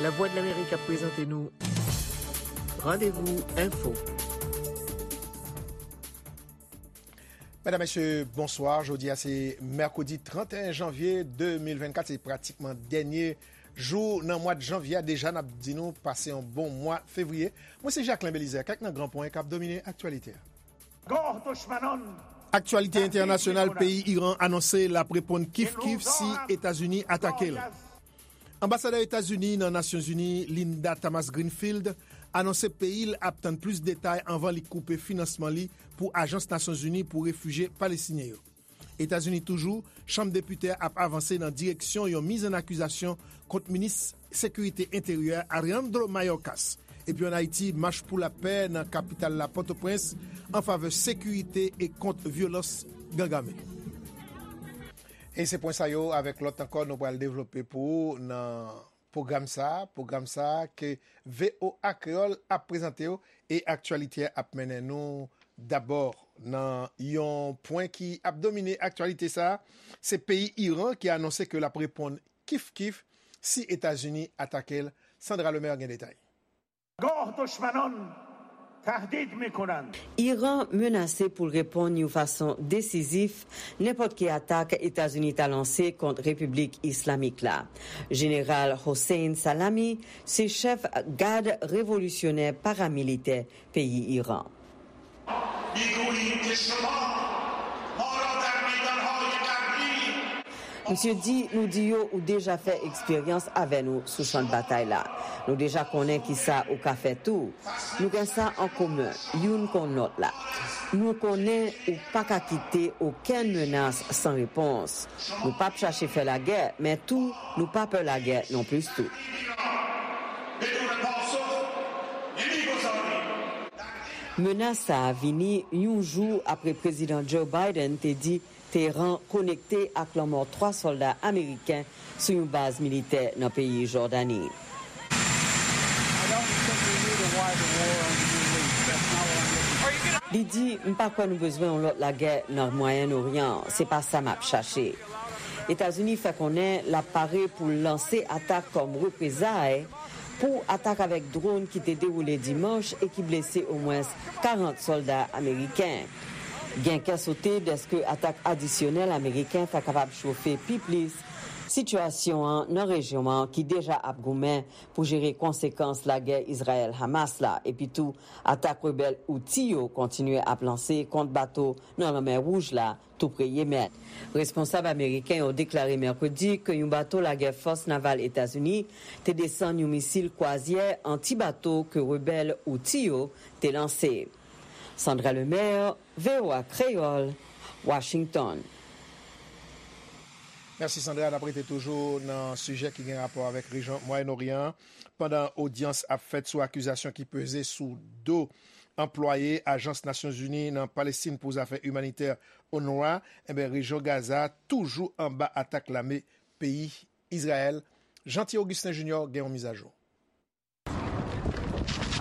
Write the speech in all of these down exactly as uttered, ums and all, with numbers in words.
Lavwadlamerik ap prezante nou Randevou Enfo. Medam, mesye, bonswa. Jodi a se mèkredi trannteyen janvye de mil vennkat, se pratikman dènye jou nan mwa janvye a. Deja, n ap di nou pase yon bon mwa fevriye. Mwen se Jacquelin Belizaire, kèk nan gran pwen k ap domine aktyalite a. Aktyalite entènasyonal, peyi Iran anonse l ap reponn kif kif si Etazini atake l. Anbasadè Etazini nan Nasyonzini, Linda Thomas-Greenfield, anonse peyi l ap tann plis detay anvan li koupe finansman li pou Ajans Nasyonzini pou Refijye Palestinyen yo. Etazini toujou, Chanm Depite a ap avanse nan direksyon yon miz an akizasyon kont minis sekirite enteryè Alejandro Mayorkas. Epi ann Ayiti, mach pou lapè nan kapital la, Pòtoprens, an favè sekirite e kont vyolans gang ame. E se pwen sa yo avèk lòt ankò nou pral devlope pou ou nan pwogram sa a, pwogram sa a ke V O A Kreyòl ap prezante w e aktyalite a ap mennen nou dabò nan yon pwen ki ap domine aktyalite sa a, se peyi Iran ki anonse ke l ap reponn kif kif si Etazini atake l. Sandra Lemaire gen detay. گاه دشمنان تهدید می‌کنند. Iran menase pou l reponn yon fason desizif nenpòt ki atak Etazini ta lanse kont Repiblik Islamik la. Jeneral Hossein Salami se chèf gad revolisyonè paramilitè peyi Iran. می‌گوییم که شما ما را در میدان‌های قبلی Misye di, nou di yo ou deja fè eksperyans avè nou sou chan batay la. Nou deja konnen kisa ou ka fè tou. Nou gen sa an komen, youn konn lòt la. Nou konnen ou pa ka kite okenn menas san repons. Nou p ap chache fè lagè, men tou, nou pa pè lagè non plis tou. Menas sa a vini yon jou apre Prezidan Joe Biden te di Teheran konekte ak lanmò twa sòlda ameriken sou yon baz militè nan peyi Jòdani. Li di, "M pa kwè nou bezwen yon lòt lagè nan Mwayen Oryan. Se pa sa m ap chache." Etazini fè konnen l ap pare pou l lanse atak kòm reprezay pou atak avèk dwòn ki te dewoule dimanch e ki blese omwens karant sòlda ameriken. Gen kè sote dèske atak adisyonèl ameriken ta kapab chofe pi plis sitiyasyon an nan rejyon an ki deja ap goumen pou jere konsekans lagè Izrayèl-Hamas la, epi tou atak rebèl Houthi yo kontinye ap lanse kont bato nan Lanmè Wouj la, tou pre Yemèn. Responsab ameriken yo deklare mèkredi ke yon bato lagè fòs naval Etazini te desann yon misil kwazyè anti-bato ke rebèl Houthi yo te lanse. Sandra Lemaire, V O A Kreyòl, Washington. Mèsi Sandra, n ap rete toujou nan sijè ki gen rapò avèk rejyon Mwayen Oryan an. Pandan odyans ap fèt sou akizasyon ki peze sou do anplwaye Ajans Nasyonzini nan Palestin pou zafè imanitè, UNRWA, enben, rejyon Gaza toujou anba atak lame peyi Izrayèl. Jeanty Augustin Junior gen yon mizajou.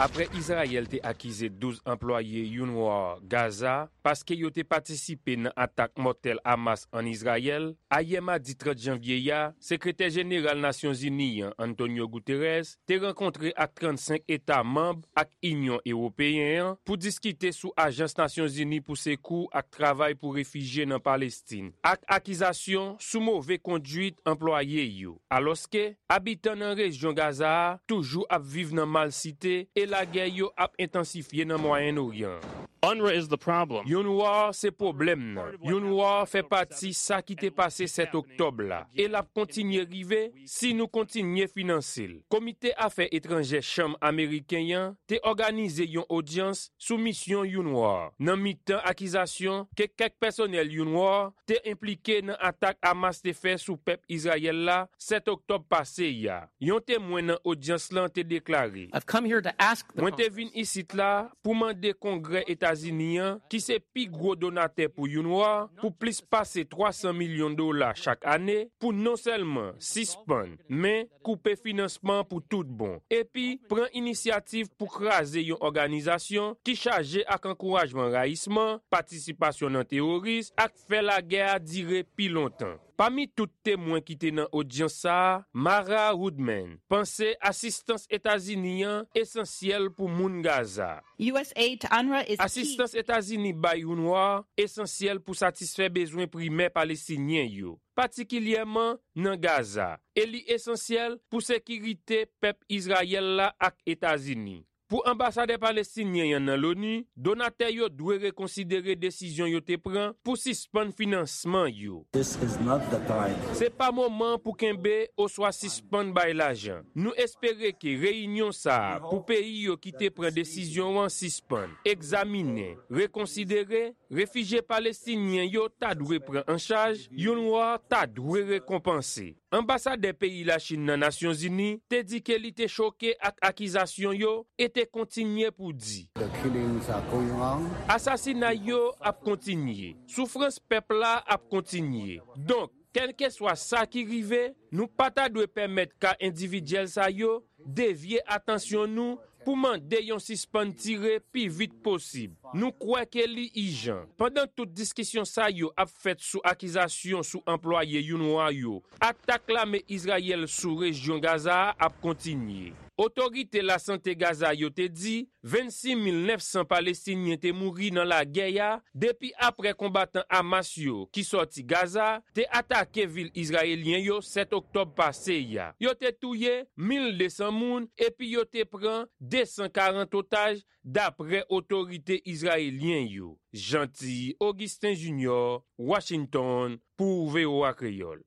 Apre Izrayèl te akize douz anplwaye UNRWA Gaza paske yo te patisipe nan atak mòtèl Hamas ann Izrayèl, ayè madi trant janvye a, Sekretè Jeneral Nasyonzini an, Antonio Guterres, te rankontre ak trannsenk eta manm ak Inyon Ewopeyen an pou diskite sou Ajans Nasyonzini pou Sekou ak Travay pou Refijye nan Palestin, ak akizasyon sou move konduit anplwaye yo. Alòske, abitan nan rejyon Gaza a toujou ap viv nan malsite e lagè yo ap entansifye nan Mwayen Oryan. UNRWA is the problem. UNRWA se pwoblèm nan. UNRWA fè pati sa ki te pase sèt oktòb la, e l ap kontinye rive si nou kontinye finanse l. Komite Afè Etranjè Chanm Ameriken an te òganize yon odyans sou misyon UNRWA, nan mitan akizasyon ke kèk pèsonèl UNRWA te enplike nan atak Hamas te fè sou pèp Izrayèl la sèt oktòb pase a. Yon temwen nan odyans lan te deklare, I've come here to ask the Mwen te Congress vin isit la pou mande Kongrè Etazini an, ki se pi gwo donatè pou UNRWA, pou plis pase twa san milyon dola chak ane, pou non sèlman sispann, men koupe finansman pou tout bon, epi pran inisyativ pou kraze yon òganizasyon ki chaje ak ankourajman rayisman, patisipasyon nan teworis, ak fè lagè a dire pi lontan. Pami tout temwen ki te nan odyans sa a, Mara Woodman panse asistans Etazini an esansyèl pou moun Gaza. U S aid to UNRWA is key. Asistans Etazini bay UNRWA esansyèl pou satisfè bezwen primè Palestinyen yo, patikilyèman nan Gaza, e li esansyèl pou sekirite pèp Izrayèl la ak Etazini. Pou anbasadè palestinyen an nan loni, donatè yo dwe rekonsidere desizyon yo te pran pou sispann finansman yo. This is not the time. Se pa moman pou kenbe oswa sispann bay lajan. Nou espere ke reyinyon sa a pou peyi yo ki te pran desizyon an sispann, egzaminen, rekonsidere, refijye palestinyen yo ta dwe pran an chaj, UNRWA ta dwe rekonpanse. Anbasadè peyi Lachin nan Nasyonzini te di ke li te choke ak akizasyon yo e te kontinye pou di, The killings are going on. Asasinay yo ap kontinye. Soufrans pèp la ap kontinye. Donk, kèlkeswa sa ki rive, nou pa ta dwe pèmèt ka endividyèl sa yo devye atansyon nou pou mande yon sispann tire pi vit posib. Nou kwè ke li ijan. Pandan tout diskisyon sa yo ap fèt sou akizasyon sou anplwaye UNRWA yo, atak lame Izrayèl sou rejyon Gaza a ap kontinye. Otorite lasante Gaza yo te di vennsis mil nèf san Palestinyen te mouri nan lagè a depi apre konbatan Hamas yo ki sòti Gaza te atake vil izrayelyen yo sèt oktòb pase a. Yo te touye mil de san moun epi yo te pran de san karant otaj, dapre otorite izrayelyen yo. Jeanty Augustin Junior, Washington, pou V O A Kreyòl.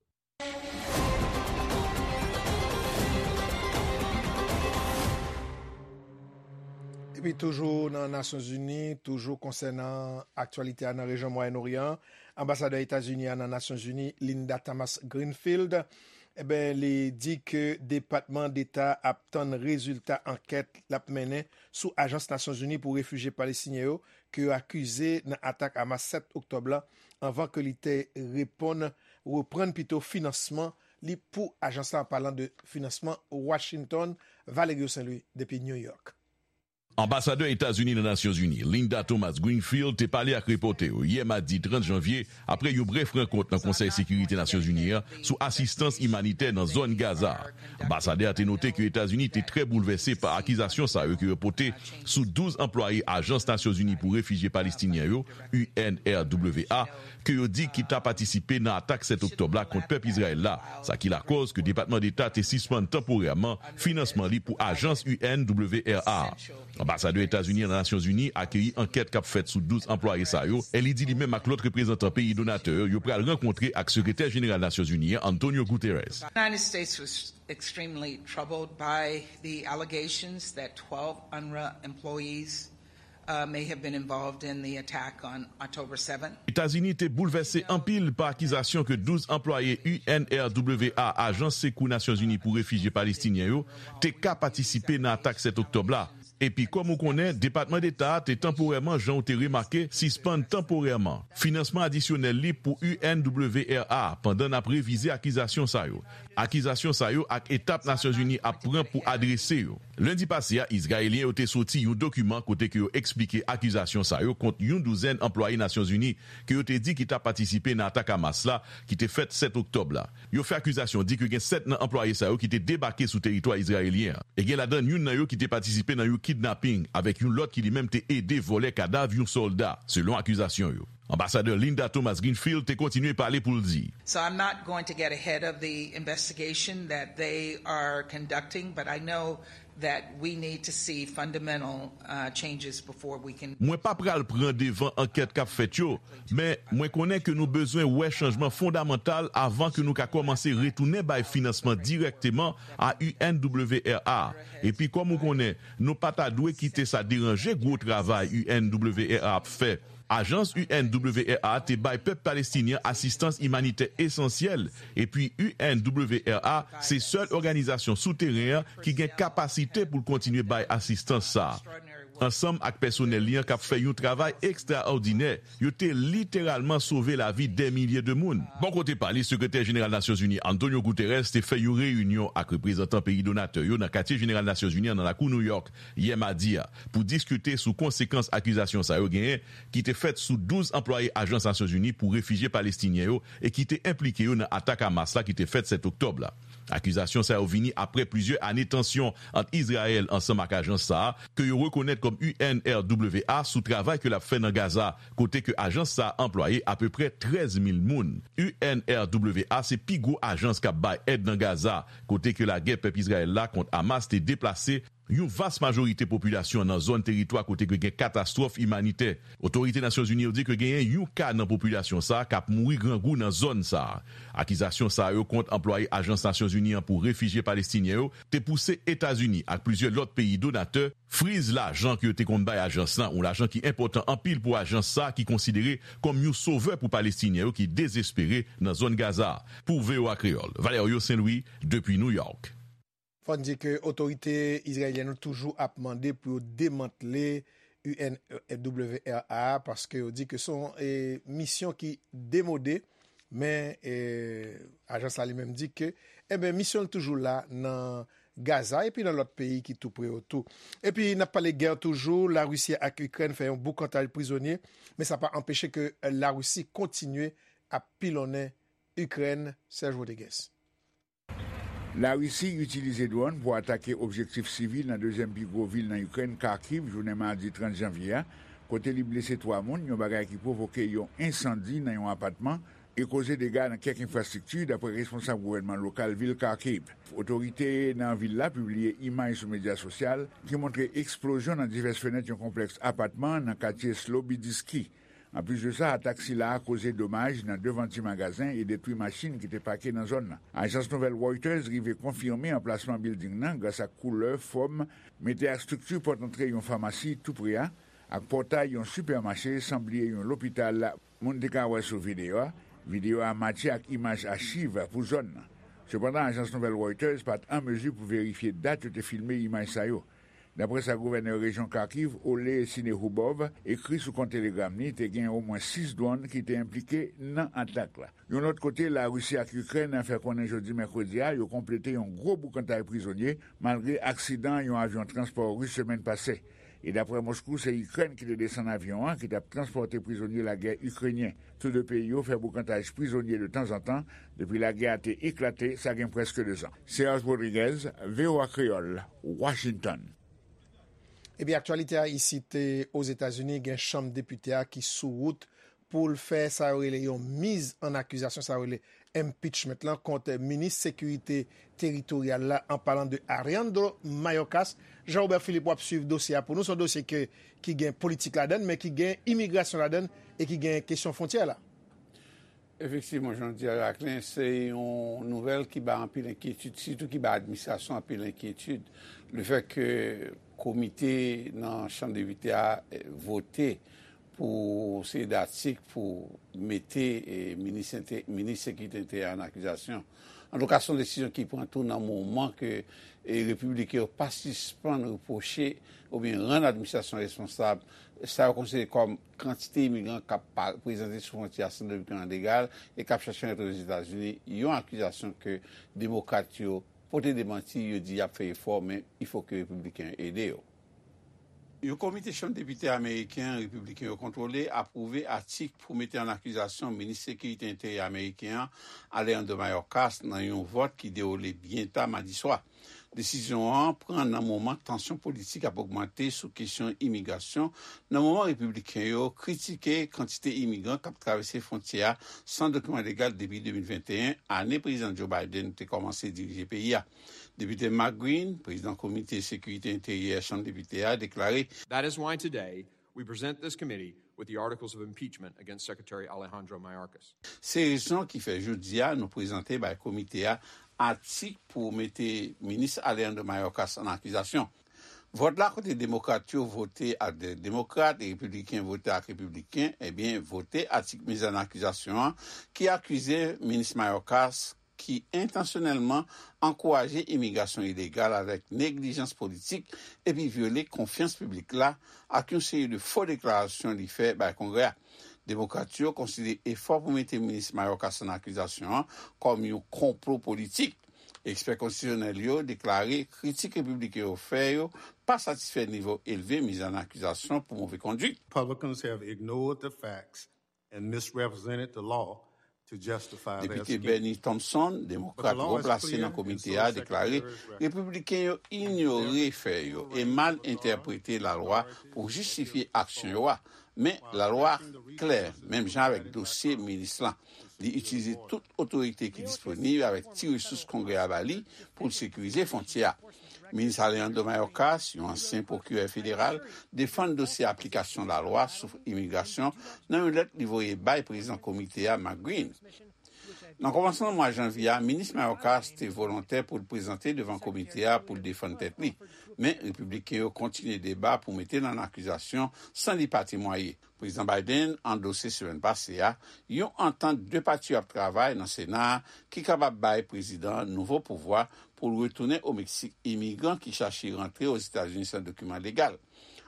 Epi toujou nan Nasyonzini, toujou konsènan aktyalite a nan rejyon Mwayen Oryan, anbasadè Etazini a nan Nasyonzini, Linda Thomas Greenfield, eben, li di ke Depatman Deta ap tann rezilta ankèt l ap mennen sou Ajans Nasyonzini pou Refijye Palestinyen yo, ke yo akize nan atak Hamas sèt oktòb la, anvan ke li te reponn, reprann pito finansman li pou ajans la, an palan de finansman Washington. Valerio Saint Louis depi New York. Anbasadè Etazini nan Nasyonzini, Linda Thomas Greenfield, te pale ak repòtè yo yè madi trant janvye, apre yon brèf rankont nan Konsèy Sekirite Nasyonzini an sou asistans imanitè nan zòn Gaza a. Anbasadè a te note ke Etazini te trè boulvèse pa akizasyon sa yo ke yo pote sou douz anplwaye Ajans Nasyonzini pou Refijye Palestinyen yo, U N R W A, ke yo di ki ta patisipe nan atak sèt oktòb la kont pèp Izrayèl la, sa ki lakòz ke Depatman Deta te sispann tanporèman finansman li pou ajans U N W R A. Anbasadè Etazini nan Nasyonzini akeyi ankèt k ap fèt sou douz anplwaye sa yo, e li di li menm ak lòt reprezantan peyi donatè yo, yo pral rankontre ak Sekretè Jeneral Nasyonzini an, Antonio Guterres. The United States was extremely troubled by the allegations that twelve UNRWA employees uh, may have been involved in the attack on October seventh. Etazini te boulvèse anpil pa akizasyon ke douz anplwaye U N R W A, Ajans Sekou Nasyonzini pou Refijye Palestinyen yo, te ka patisipe nan atak sèt oktòb la. Epi, kòm ou konnen, Depatman Deta a te tanporèman, jan w te remake, sispann tanporèman finansman adisyonèl li pou U N W R A pandan n ap revize akizasyon sa yo. Akizasyon sa yo ak etap Nasyonzini ap pran pou adrese yo. Lendi pase a, Izrayelyen yo te soti yon dokiman kote ke yo eksplike akizasyon sa yo kont yon douzèn anplwaye Nasyonzini ke yo te di ki ta patisipe nan atak Hamas la ki te fèt sèt oktòb la. Yo fè akizasyon di ke gen sèt nan anplwaye sa yo ki te debake sou teritwa izrayelyen an. E gen ladan youn nan yo ki te patisipe nan yon kidnaping, avèk yon lòt ki li menm te ede vòlè kadav yon sòlda, selon akizasyon yo. Anbasadè Linda Thomas Greenfield te kontinye pale pou l di. So I'm not going to get ahead of the investigation that they are conducting, but I know that we need to see fundamental uh, changes before we can. Mwen pa pral pran devan ankèt k ap fèt yo, men mwen konnen ke nou bezwen wè chanjman fondamantal avan ke nou ka kòmanse retounen bay finansman dirèkteman a U N W R A. Epi, kòm ou konnen, nou pa ta dwe kite sa deranje gwo travay U N W R A ap fè. Ajans U N W R A te bay pèp palestinyen asistans imanitè esansyèl, epi U N W R A se sèl òganizasyon sou teren an ki gen kapasite pou l kontinye bay asistans sa a. ansanm ak pèsonèl li an k ap fè yon travay ekstraòdinè, yo te literalman sove lavi dè milye de moun. Bò kote pa li, Sekretè Jeneral Nasyonzini Antonio Guterres te fè yon reyinyon ak reprezantan peyi donatè yo nan Katye Jeneral Nasyonzini an nan lakou New York yè madi a pou diskite sou konsekans akizasyon sa yo genyen ki te fèt sou douz anplwaye Ajans Nasyonzini pou Refijye Palestinyen yo e ki te enplike yo nan atak Hamas la ki te fèt sèt oktòb la. Akizasyon sa yo vini apre plizyè ane tansyon ant Izrayèl ansanm ak ajans sa a, ke yo rekonèt kòm U N R W A, sou travay ke l ap fè nan Gaza, kote ke ajans sa a anplwaye apeprè trèz mil moun. U N R W A se pi gwo ajans k ap bay èd nan Gaza, kote ke lagè pèp Izrayèl la kont Hamas te deplase yon vas majorite popilasyon nan zòn teritwa kote ke gen katastwòf imanitè. Otorite Nasyonzini yo di ke genyen yon ka nan popilasyon sa a k ap mouri grangou nan zòn sa a. Akizasyon sa yo kont anplwaye Ajans Nasyonzini an pou Refijye Palestinyen yo te pouse Etazini ak plizyè lòt peyi donatè friz lajan ke yo te konn bay ajans lan, yon lajan ki enpòtan anpil pou ajans sa a ki konsidere kòm yon sovè pou Palestinyen yo ki dezespere nan zòn Gaza a. Pou V O A Kreyòl, Valerio Saint Louis, depi New York. Fò n di ke otorite izrayelyèn yo toujou ap mande pou yo demantle U N W R A a, paske yo di ke se yon e, misyon ki demode, men e, ajans la li menm di ke enben misyon l toujou la nan Gaza epi nan lòt peyi ki tou pre yo tou. Epi n ap pale gè toujou, Larisi ak Ikrèn fè yon boukantaj prizonye, men sa pa anpeche ke Larisi kontinye ap pilonnen Ikrèn, Serge Rodriguez. Larisi itilize dwòn pou atake objektif sivil nan dezyèm pi gwo vil nan Ikrèn, Kharkiv, jounen madi trant janvye a, kote li blese twa moun, yon bagay ki pwovoke yon ensandi nan yon apatman e koze dega nan kèk enfrastrikti, dapre responsab gouvènman lokal vil Kharkiv. Otorite nan vil la pibliye imaj sou medya sosyal ki montre eksplozyon nan divès fenèt yon konplèks apatman nan katye Slobodiski. Anplis de sa, atak sila a koze domaj nan devan ti magazen e detwi machin ki te pake nan zòn nan. Ajans nouvèl Reuters rive konfime anplasman bilding nan gras ak koulè, fòm, mete ak estrikti pòt antre yon famasi tou pre a, ak pòtay yon sipèmache, san bliye yon lopital, moun te ka wè sou videyo a. Videyo a matche ak imaj achiv pou zòn nan. Sepandan, ajans nouvèl Reuters pa t an mezi pou verifye dat yo te filme imaj sa yo. Dapre sa gouvènè rejyon Kharkiv, Ole Sinehubov, ekri sou kont Telegram li, te gen omwen sis dwòn ki te enplike nan atak la. Yon lòt kote, Larisi ak Ikrèn fè konnen jodi mèkredi a yo konplete yon gwo boukantay prizonye malgre aksidan yon avyon transpò ris semèn pase. E dapre Moskou, se Ikrèn ki te desann avyon an ki t ap transpòte prizonye lagè ikrenyen. Tou de peyi yo fè boukantaj prizonye de tanzantan depi lagè a te eklate, sa gen prèske dezan. Serge Rodriguez, V O A Kreyòl, Washington. Epi aktyalite a isit Ozetazini, gen chanm depite a ki sou wout pou l fè sa yo rele yon miz an akizasyon, sa yo rele impeachment lan kont minis sekirite teritoryal la, an palan de Alejandro Mayorkas. Jean Robert Philippe, w ap swiv dosye a pou nou. Se yon dosye ke, ki gen politik ladan l, men ki gen imigrasyon ladan l e ki gen kesyon fwontyè la. Efektivman, jan w di a, Jacquelin, se yon nouvèl ki bay anpil enkyetid, sitou ki bay administrasyon anpil enkyetid. Lefètke komite nan Chanm Depite a vote pou seri de atik pou mete minis sekirite enteryè an akizasyon. Antouka, se yon desizyon ki pran tou nan moman ke repibliken yo pa sispann repwoche oubyen rann administrasyon responsab sa yo konsidere kòm kantite imigran k ap prezante sou fwontyè a san dokiman legal e k ap chache rantre Ozetazini, yon akizasyon ke demokrat yo pote demanti, yo di y ap fè efò, men il faut que repibliken yo ede yo. Yon komite Chanm Depite ameriken an, repibliken yo kontwole, apwouve atik pou mete an akizasyon minis sekirite enteryè ameriken an, Alejandro Mayorkas, nan yon vòt ki dewoule byen ta madi swa. Desizyon an pran nan moman tansyon politik ap ogmante sou kesyon imigrasyon, nan moman repibliken yo kritike kantite imigran k ap travèse fwontyè a san dokiman legal depi de mil venteyen, ane Prezidan Joe Biden te kòmanse dirije peyi a. Depite Mark Green, prezidan Komite Sekirite Enteryè Chanm Depite a, deklare, That is why today we present this committee with the articles of impeachment against Secretary Alejandro Mayorkas. Se rezon ki fè jodi a nou prezante bay komite a atik pou mete minis Alejandro Mayorkas an akizasyon. Vòt la, kote demokrat yo vote ak demokrat e repibliken vote ak repibliken, ebyen, vote atik miz an akizasyon an ki akize minis Mayorkas ki entansyonèlman ankouraje imigrasyon ilegal avèk neglijans politik epi vyole konfyans piblik la ak yon seri de fo deklarasyon li fè bay Kongrè a. Demokrat yo konsidere efò pou mete minis Mayorkas an akizasyon an kòm yon konplo politik. Ekspè konstitisyonèl yo deklare kritik repibliken yo fè yo pa satisfè nivo elve miz an akizasyon pou move kondwit. Republicans have ignored the facts and misrepresented the law to justify their Depite scheme. Bennie Thompson, demokrat wo plase nan komite a, deklare repibliken yo inyore fè yo e mal entèprete lalwa pou jistifye aksyon yo a. Men, lalwa a klè, menm jan avèk dosye minis lan. Li itilize tout otorite ki disponib avèk ti resous Kongrè a ba li pou l sekirize fwontyè a. Minis Alejandro Mayorkas, yon ansyen pwokirè federal, defann dosye aplikasyon lalwa sou imigrasyon nan yon lèt li voye bay prezidan komite a, Mark Green. Nan kòmansman mwa janvye a, minis Mayorkas te volontè pou l prezante devan komite a pou l defann tèt li. Men, repibliken yo kontinye deba pou mete l an akizasyon san li pa temwaye. Prezidan Biden andose semèn pase a yon antant de pati yo ap travay nan Sena a ki kapab bay prezidan an nouvo pouvwa pou l retounen o Meksik imigran ki chache rantre Ozetazini san dokiman legal.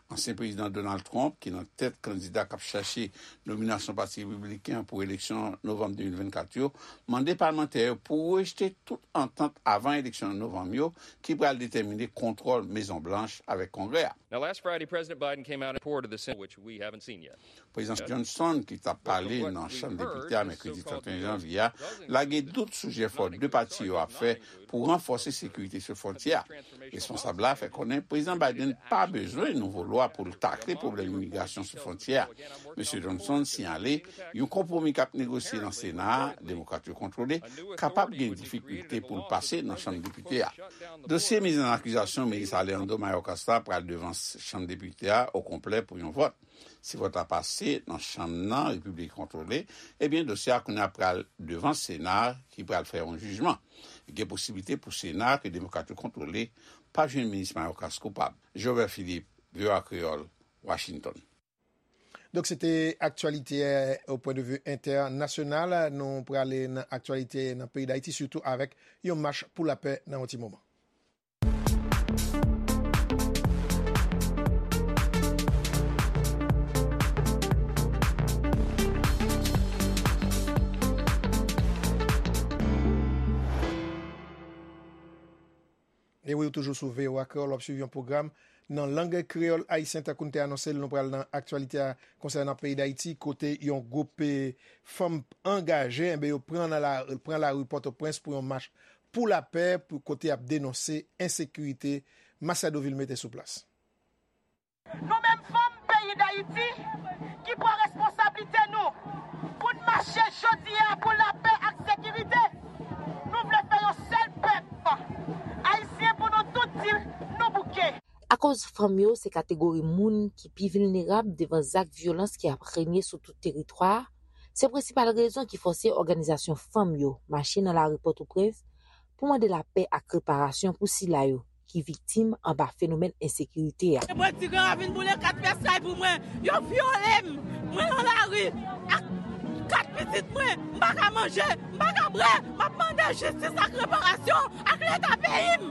Ansyen prezidan Donald Trump, ki nan tèt kandida k ap chache nominasyon Pati Repibliken an pou eleksyon novanm de mil vennkat yo, mande palmantè yo pou rejte tout antant avan eleksyon novanm yo ki pral detèmine kontwòl Mezon Blanch avèk Kongrè a. Now, last Friday, President Biden came out and reported the Senate, which we haven't seen yet. Prezidan Johnson, ki t ap pale nan Chanm Depite a mèkredi trannteyen janvye a, lage dout sou jefò de pati yo ap fè pou ranfòse sekirite sou fwontyè a. Responsab la fè konnen Prezidan Biden pa bezwen nouvo lwa pou l takle pwoblèm imigrasyon sou fwontyè a. Mesye Johnson siyale yon konpwomi k ap negosye nan Sena a, Demokrat yo kontwole, kapab gen difikilte pou l pase nan Chanm Depite a. Dosye miz an akizasyon minis Alejandro Mayorkas la pral devan Chanm Depite a okonplè pou yon vòt. Si vòt la pase nan chanm nan Repiblik kontwole, ebyen dosye a kounye a pral devan Sena ki pral fè yon jijman. Gen posiblite pou Sena ke Demokrat yo kontwole pa jwenn minis Mayorkas koupab. Joël Philippe, V O A Kreyòl, Washington. Donk, se te aktyalite, eh, au point de vue international. Nou prale nan aktyalite nan peyi Dayiti, sitou avèk yon mach pou lapè nan yon ti moman. E wi, ou toujou sou V O A Kreyòl, w ap swiv yon pwogram nan lang kreyòl ayisyen. Tankou n te anonse l, nou pral nan aktyalite a konsènan peyi Dayiti, kote yon gwoup, eh, fanm angaje, enben, yo pran nan la, pran lari Pòtoprens pou yon mach pou lapè, pou kote y ap denonse ensekirite. Masiado Vilmé te sou plas. Nou menm fanm peyi Dayiti ki pran responsablite nou pou n mache jodi a pou lapè ak sekirite, nou vle fè yon sèl pèp ayisyen pou nou tout di nou bouke. Akoz fanm yo se kategori moun ki pi vilnerab devan zak vyolans ki ap renye sou tout teritwa a, se prensipal rezon ki fòse òganizasyon fanm yo mache nan lari Pòtoprens pou mande lapè ak reparasyon pou sila yo ki viktim anba fenomèn ensekirite a. Mwen, ti gran ravin boule kat pyès kay pou mwen. Yo vyole m. Mwen nan lari ak kat pitit mwen. M pa ka manje, m pa ka bwè. M ap mande jistis ak reparasyon ak Leta peyi m.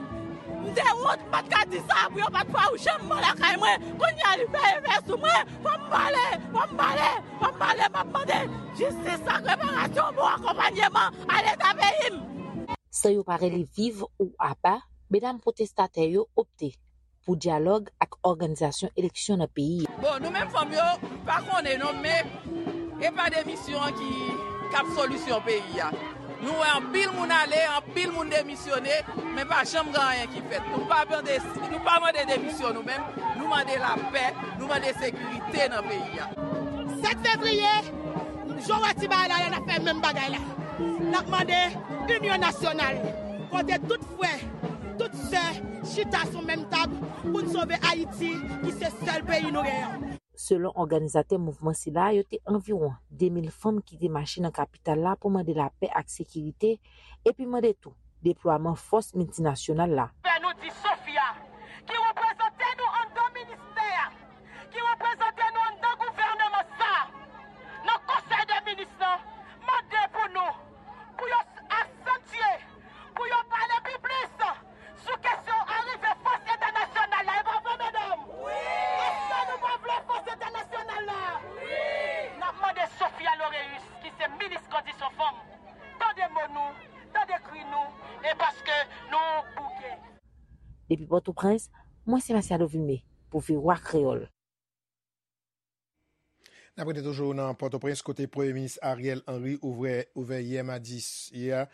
M te wont, m pa t ka di sa pou yo pa t fè yon janm mò lakay mwen. Kounye a, li fè efè sou mwen. Fò m pale, fò m pale, fò m pale. M ap mande jistis ak reparasyon, bon akonpanyeman a Leta peyi m. San yo pa rele viv ou apa, medam pwotestatè yo opte pou dyalòg ak òganizasyon eleksyon nan peyi a. Bon, nou menm fanm yo, m pa konnen non, men e pa demisyon an ki, k ap solisyon peyi a. Nou wè anpil moun ale, anpil moun demisyone, men pa janm gen anyen ki fèt. Nou pa mande, nou pa mande demisyon nou menm, nou mande lapè, nou mande sekirite nan peyi a. Sèt fevriye, jan w wè ti bagay la, n ap fè menm bagay la. N ap mande inyon nasyonal, kote tout frè, tout sè chita sou menm tab pou n sove Ayiti, ki se sèl peyi nou genyen. Selon òganizatè mouvman sila, yo te anviwon de mil fanm ki te mache nan kapital la pou mande lapè ak sekirite, epi mande tou deplwaman fòs miltinasyonal la. Fè nou di Sofia, ki reprezante nou anndan ministè a, ki reprezante nou anndan gouvèneman sa a, nan konsèy de minis lan, mande pou nou, pou yo s-, a santye E paske nou bouke. Depi Pòtoprens, mwen se Masiado Vilmé pou V O A Kreyòl. N ap rete toujou nan Pòtoprens kote Premye Minis Ariel Henry ouvè ouvè yè madi a,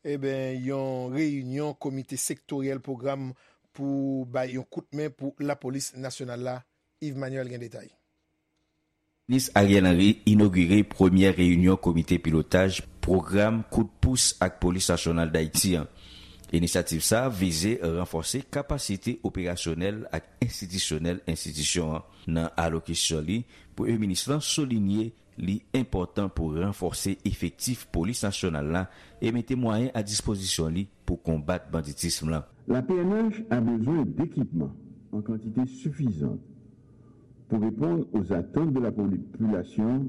eben, yon reyinyon komite sektoryèl pwogram pou bay yon kout men pou lapolis nasyonal la. Yves Manuel gen detay. Minis Ariel Henry inogire premyè reyinyon komite pilotaj pwogram kout pous ak Polis Nasyonal Dayiti an. Inisyativ sa a vize ranfòse kapasite operasyonèl ak enstitisyonèl enstitisyon an. Nan alokisyon li, Premye Minis lan soulinye li enpòtan pou ranfòse efektif Polis Nasyonal la e mete mwayen a dispozisyon li pou konbat banditism lan. La P N H a besoin d'équipements en quantité suffisante pour répondre aux attentes de la population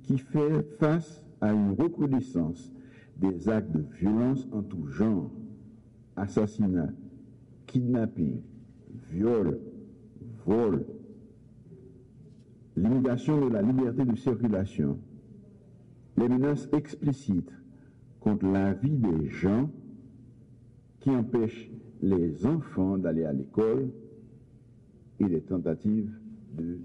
qui fait face à une recrudescence des actes de violence en tout genre, assassinats, kidnappings, viols, vols, limitation de la liberté de circulation, les menaces explicites contre la vie des gens qui empêchent les enfants d'aller à l'école et les tentatives de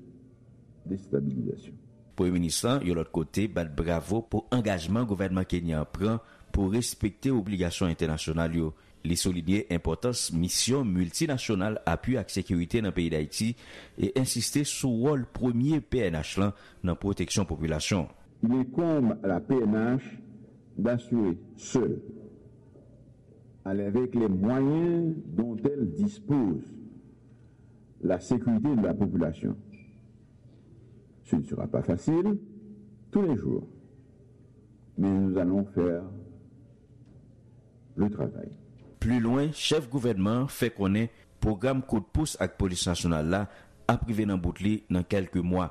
déstabilisation. Premye Minis lan, yon lòt kote, bat bravo pou angajman gouvènman kenyan an pran pou respekte obligasyon entènasyonal yo. Li soulinye enpòtans misyon miltinasyonal apui ak sekirite nan peyi Dayiti e ensiste sou wòl premye P N H lan nan pwoteksyon popilasyon. Il incombe à la P N H d'assurer seule, avec les moyens dont elle dispose, la sécurité de la population. Ce ne sera pas facile tous les jours, mais nous allons faire le travail. Pli lwen, chèf gouvènman an fè konnen pwogram kout pous ak Polis Nasyonal la ap rive nan bout li nan kèlke mwa.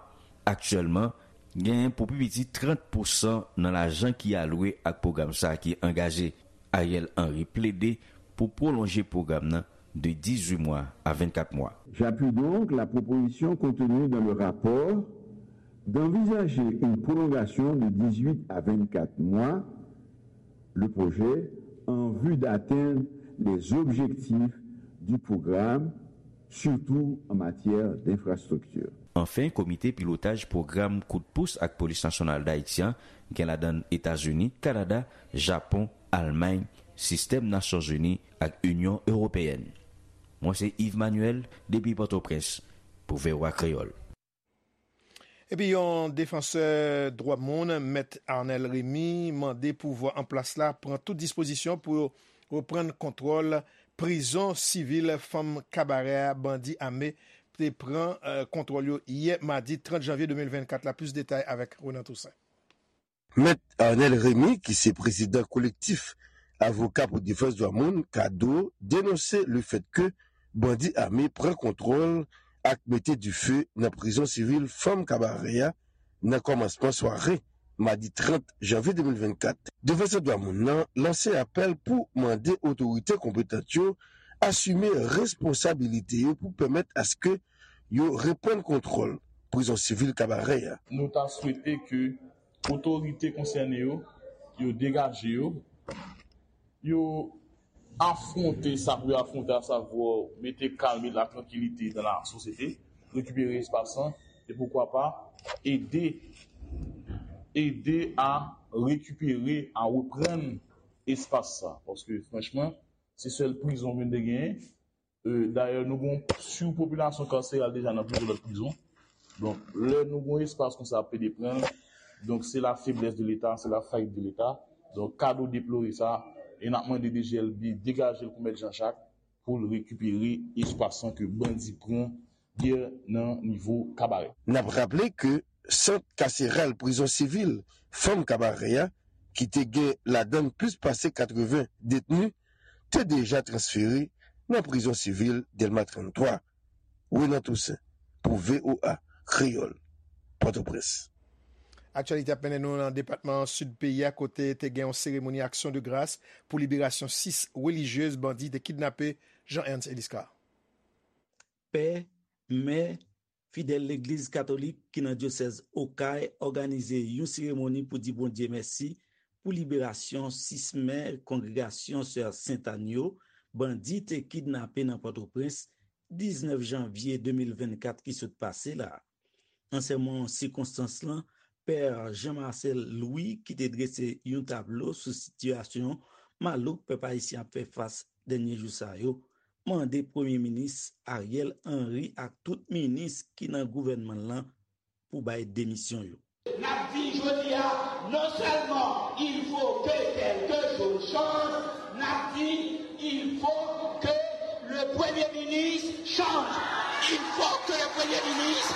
Aktyèlman, genyen pou pi piti trant pousan nan lajan ki alwe ak pwogram sa a ki angaje. Ariel Henry plede pou pwolonje pwogram nan de dizuit mwa a vennkat mwa. J'appuie donc la proposition contenue dans le rapport d'envisager une prolongation de dix-huit à vingt-quatre mois le projet en vue d'atteindre les objectifs du programme, surtout en matière d'infrastructure. Anfen, Komite Pilotaj Pwogram Kout Pous ak Polis Nasyonal Dayiti an gen ladan l Etazini, Kanada, Japon, Almay, Sistèm Nasyonzini ak Inyon Ewopeyèn. Mwen se Yves Manuel depi Pòtoprens pou V O A Kreyòl. Epi yon defansè dwa moun, Mèt Arnel Remy, mande pouvwa an plas la pran tout dispozisyon pou reprann kontwòl prizon sivil fanm kabarè a bandi ame te pran kontwòl yo yè madi trant janvye de mil vennkat la. Plis detay avèk Renan Toussaint. Mèt Arnel Remy, ki se prezidan Kolektif Avoka pou Defans Dwa Moun, kado, denonse lefèt ke bandi ame pran kontwòl ak mete dife nan prizon sivil fanm kabarè a nan kòmansman sware madi trant janvye de mil vennkat. Defansè dwa moun nan lanse apèl pou mande otorite konpetant yo asime responsabilite yo pou pèmèt aske yo reprann kontwòl prizon sivil kabarè a. Nou ta swete ke otorite konsène yo, yo degaje yo, yo afwonte sa pou yo afwonte, asavwa mete kalm e la trankilite dans la société, rekipere espas lan, e poukwa pa ede, ede a rekipere, a reprann espas sa. Paske franchman, se sèl prizon ke n te genyen. Dayè, nou gon sipopilasyon kaseral deja nan plizyè lòt prizon. Donk, lè nou gon espas konsa ap pede pran l, donk se la feblès de Leta, se la fayit de Leta. Donk, kado deplore sa, e n ap mande D G L B degaje l pou Mèt Jean Jacques pou l rekipere espas lan ke bandi pran yè nan nivo Kabarè. N ap raple ke sant kaseral prizon sivil fanm Kabarè a, ki te gen ladan l plis pase katreven detni, te deja transfere nan prizon sivil Dèlma tranntwa. Renan Toussaint pou V O A Kreyòl, Pòtoprens. Aktyalite ap mennen nou nan depatman Sid peyi a, kote te gen yon seremoni aksyon de gras pou liberasyon sis relijyez bandi te kidnape, Jean Ernst Eliscar. Pè, mè, fidèl legliz katolik ki nan dyosèz Okay òganize yon seremoni pou di Bondye mèsi pou liberasyon sis mè kongregasyon Sè Sentàn yo, bandi te kidnape nan Pòtoprens diznèf janvye de mil vennkat ki sot pase la. Nan sèmon sikonstans lan, Pè Jean Marcel Louis, ki te drese yon tablo sou sitiyasyon malouk pèp ayisyen ap fè fas dènye jou sa yo, mande Premye Minis Ariel Henry ak tout minis ki nan gouvènman l lan pou bay demisyon yo. N ap di jodi a, non sèlman il faut que quelque chose change, n ap di il faut que le Premier ministre change. Il faut que le Premier ministre.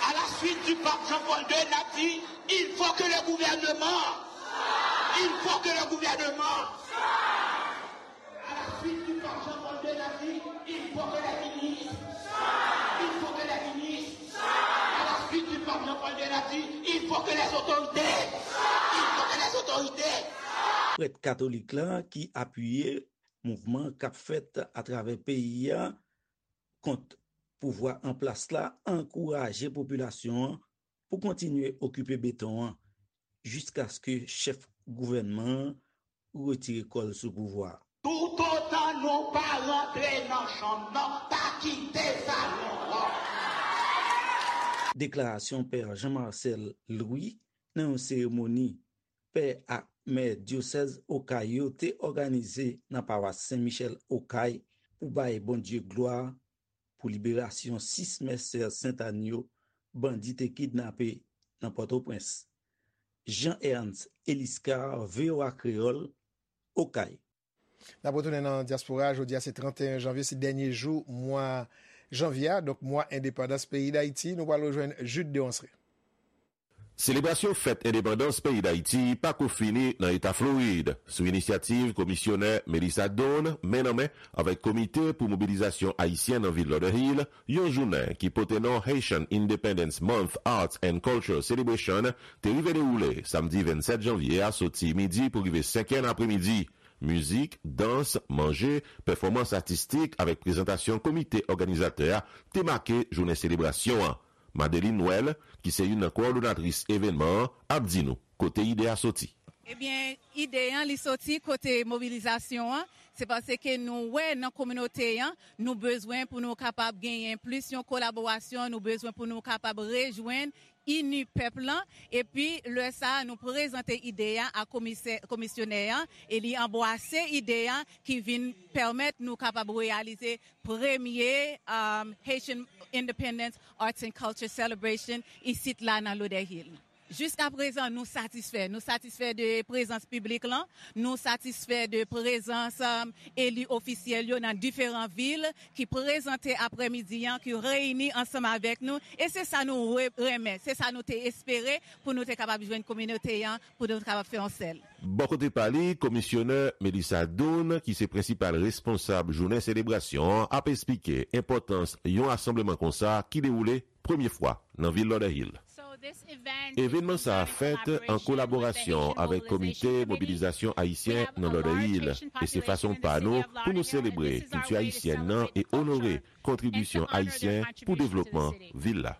À la suite du pape Jean-Paul deux, n ap di il faut que le gouvernement, il faut que le gouvernement. À la suite du pape Jean-Paul deux, n ap di il faut que les ministres, il faut que les ministres. À la suite du pape Jean-Paul deux, n ap di il faut que les autorités, il faut que les autorités. Prèt katolik la ki apiye mouvman k ap fèt atravè peyi a kont pouvwa an plas la ankouraje popilasyon an pou kontinye okipe beton an jiskaske chèf gouvènman an retire kò l sou pouvwa a. Toutotan nou pa rantre nan chanm nan, pa kite salon an. Deklarasyon Pè Jean Marcel Louis nan yon seremoni pè ak mè dyosèz Okay yo te òganize nan pawas Sen Michèl Okay pou bay Bondye glwa pou liberasyon sis mè Sè Sentàn yo bandi te kidnape nan Pòtoprens. Jean Ernst Eliscar, V O A Kreyòl, Okay. N ap retounen nan dyaspora. Jodi a se trannteyen janvye, se dènye jou mwa janvye a, donk mwa endepandans peyi Dayiti. Nou pral rejwenn Jude Deronceray. Selebrasyon fèt endepandans peyi Dayiti pako fini nan eta Florid. Sou inisyativ komisyonè Melissa Doane, men nan men avèk Komite pou Mobilizasyon Ayisyen nan vil Lauderhill, yon jounen ki pote non Haitian Independence Month Arts and Culture Celebration te rive dewoule samdi vennsèt janvye a, soti midi pou rive senk è nan apremidi. Mizik, dans, manje, pèfòmans atistik avèk prezantasyon komite òganizatè a te make jounen selebrasyon an. Madeline Noël, ki se youn nan kowòdonatris evènman an, ap di nou kote ide a soti. Ebyen, ide an, li soti kote mobilizasyon an. Se paske nou wè nan kominote an, nou bezwen pou nou kapab genyen plis yon kolaborasyon, nou bezwen pou nou kapab rejwenn ini pèp lan, epi lè sa a, nou prezante ide a a komisè, komisyonè an, e li anbwase ide a ki vin pèmèt nou kapab reyalize premye, um, Haitian Independence Arts and Culture Celebration isit la nan Lauderhill. Jiska prezan, nou satisfè. Nou satisfè de prezans piblik lan, nou satisfè de prezans, um, eli ofisyèl yo nan diferan vil ki prezante aprèmidi an, ki reyini ansanm avèk nou. E se sa nou re-, renmen, se sa nou te espere pou nou te kapab jwenn kominote an, pou nou te kapab fè yon sèl. Bò kote pa li, komisyonè Melissa Doane, ki se prensipal responsab jounen selebrasyon an, ap esplike enpòtans yon rasanbleman konsa ki dewoule premye fwa nan vil Lauderhill. Evènman sa a fèt an kolaborasyon avèk Komite Mobilizasyon Ayisyen nan Lauderhill, e se fason pa nou pou nou selebre kilti ayisyèn nan e onore kontribisyon ayisyen pou devlopman vil la.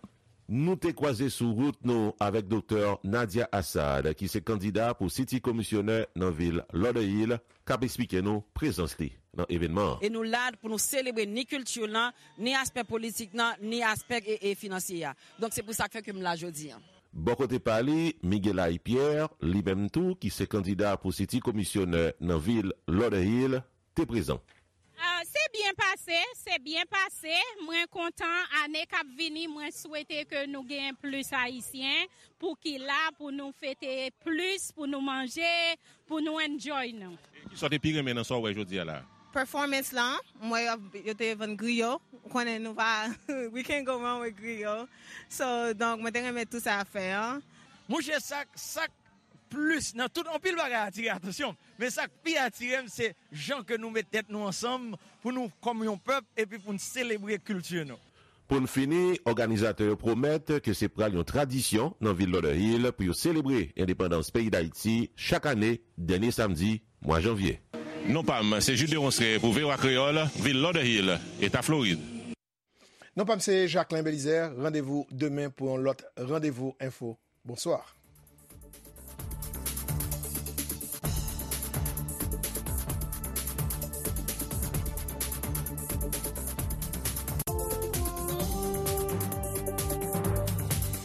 Nou te kwaze sou wout nou avèk Doktè Nadia Assad, ki se kandida pou City Komisyonè nan vil Lauderhill, k ap esplike nou prezans li nan evènman an. E nou la pou nou selebre ni kilti lan, ni aspè politik lan, ni aspè e, e finansye a. Donk, se pou sa k fè ke m la jodi a. Bò kote pa li, Miguelay Pierre, li menm tou, ki se kandida pou City Komisyonè nan vil Lauderhill, te prezan. Ah, se byen pase, se byen pase. Mwen kontan, ane k ap vini, mwen swete ke nou gen plis Ayisyen pou ki la, pou nou fete plis, pou nou manje, pou nou enjoy nou. Kisa w te pi renmen nan sa w wè jodi a la? Performance lan, m wè yo, yo te vann griyo. Ou konnen nou pa, we can't go wrong with griyo. So, donk, mwen te renmen tout sa a fè an. Monchè, sa, sa plis nan tout, anpil bagay atire atansyon m. Men sa k pi atire m, se jan ke nou met tèt nou ansanm pou nou, kòm yon pèp, epi pou n selebre kilti nou. Pou n fini, òganizatè yo pwomèt ke se pral yon tradisyon nan vil Lauderhill pou yo selebre endepandans peyi Dayiti chak ane, dènye samdi mwa janvye. Non pa m, se Jude Deronceray pou V O A Kreyòl, vil Lauderhill, eta Florid. Non pa m se Jacquelin Belizaire, randevou demen pou yon lòt Randevou Enfo. Bonswa.